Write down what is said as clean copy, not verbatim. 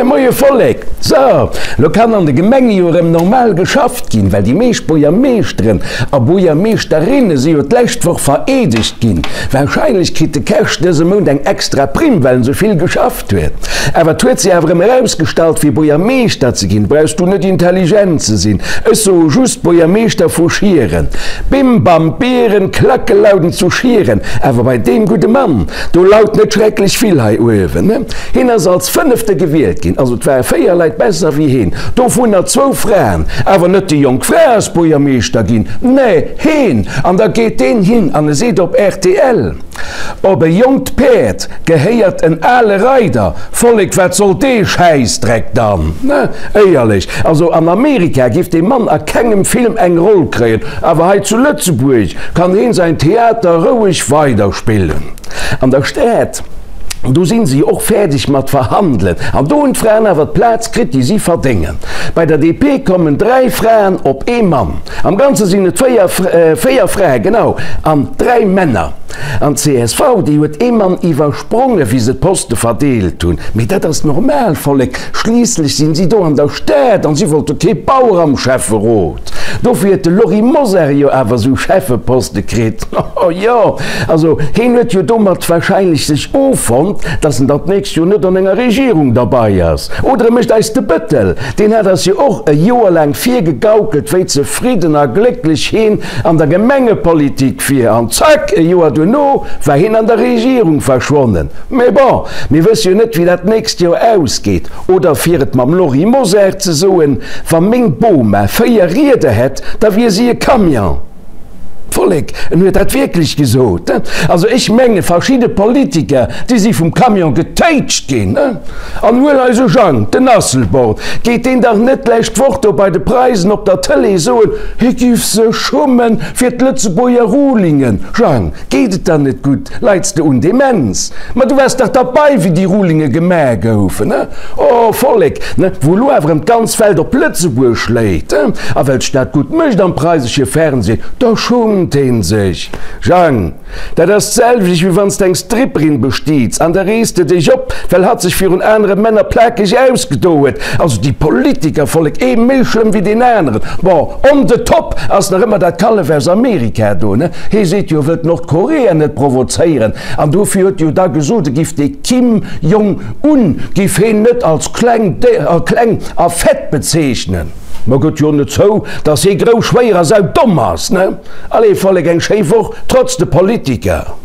Moie Vollek! So, lo kann an de Gemenge jo erëm normal geschafft ginn, well déi meescht Buergermeeschteren a Buergermeeschterinne si jo d'lescht Woch vereedegt ginn. Warscheinlech kritt de Kersch dëse Mount eng extra Primm, well en sou vill geschafft huet. Awer et huet sech awer erëm erausgestallt, fir Buergermeeschter ze ginn, brauchs du net intelligent ze sinn. Ech soe just Buergermeeschter vu Schieren. Bim bam Bieren, Klacke lauden zu Schieren. Awer bei deem gudde Mann, do laut net schrecklech vill hei uewen. Hien ass als Fënnefte gewielt ginn, also et ware 4 Leit besser wéi hien, dovunner zwou Fraen. Awer net déi jonk Fra ass Buergermeeschter ginn, nee, heen! An da geet deen hin an e seet op rtl, Op e jonkt Päerd gehéiert en ale Reider. Vollek, wat soll dee Schäissdreck dann? Ne, éierlech, also an Amerika giff dee Mann a kengem Film eng Roll kréien, awer hei zu Lëtzebuerg kann heen säin Theater roueg weiderspillen. An der Stad. Do sinn se jo och fäerdeg mat verhandelen. An do hunn d'Fraen awer d'Plaz kritt, déi si verdéngen. Bei der DP kommen 3 Fraen op ee Mann. Am Ganze sinn et 4, 4 Frae, genau, an 3 Männer. An d'CSV, déi huet ee Mann iwwersprongen, wéi se d'Poste verdeelt hunn. Mee dat ass normal, Vollek, schliisslech sinn si do an der Stad an si wollte kee Bauer am Schäfferot. Dofir huet de Lory Mosar jo awer esou Schäffeposte kritt. Oh jo, also heen huet jo domat wahrscheinlech sech offonnt, dass en dann d'nächst Joer net an enger Regierung derbei ass. Oder e mécht eis de Bëttel. Deen hat eis jo och e Joer laang virgegaukelt, wéi zefridden a glécklech heen an der Gemengepolitik wier. An zack, e Joer duerno war heen an der Regierung verschwonnen. Mee bon, mir wësse jo net, wéi dat d'nächst Joer ausgeet. Oder fir et mam Lory Mosar ze soen, Wa meng Boma 4 Rieder hätt, da wier si e Camion. Vollek, en huet dat wierklech gesot. Also ech menge verschidde Politiker, déi si vum Camion getéitscht ginn. An huel eise Jang, den Asselborn, geet deen dach net d'lescht Woch do bei de Preisen op der Tëlee soen, hie giff sech schummen fir d'Lëtzebuerger Rulingen. Jang, Geet et der net gutt? Leits de un Demenz? Ma du waars dach derbei, wéi déi Rulinge gemaach goufen, ne? Oh, Vollek, ne, wou elo awer erëm d'ganz Welt op Lëtzebuerg schléit, he? A well d'Stad gutt mécht am preisesche Fernseh, da schummt een sech. Jang, dat ass d'selwecht, wéi wann s de eng Stripperin bestiits an da rees de dech op, well hatt sech virun anere Männer plakeg ausgedo huet. Also déi Politiker, Vollek, ee méi schlëmm wéi deen aneren. Bon, on the top ass nach ëmmer dat Kallef aus Amerika do, ne? Hee seet jo, e wëllt Nordkorea net provozéieren an dofir huet e jo da gesot, e giff dee Kim Jong Un giff heen net als kleng kleng a fett bezeechnen. Ma gëtt jo net zou, datt hee grouss, schwéier a saudomm ass, ne? Allez Vollek, eng schéi Woch, trotz de Politiker!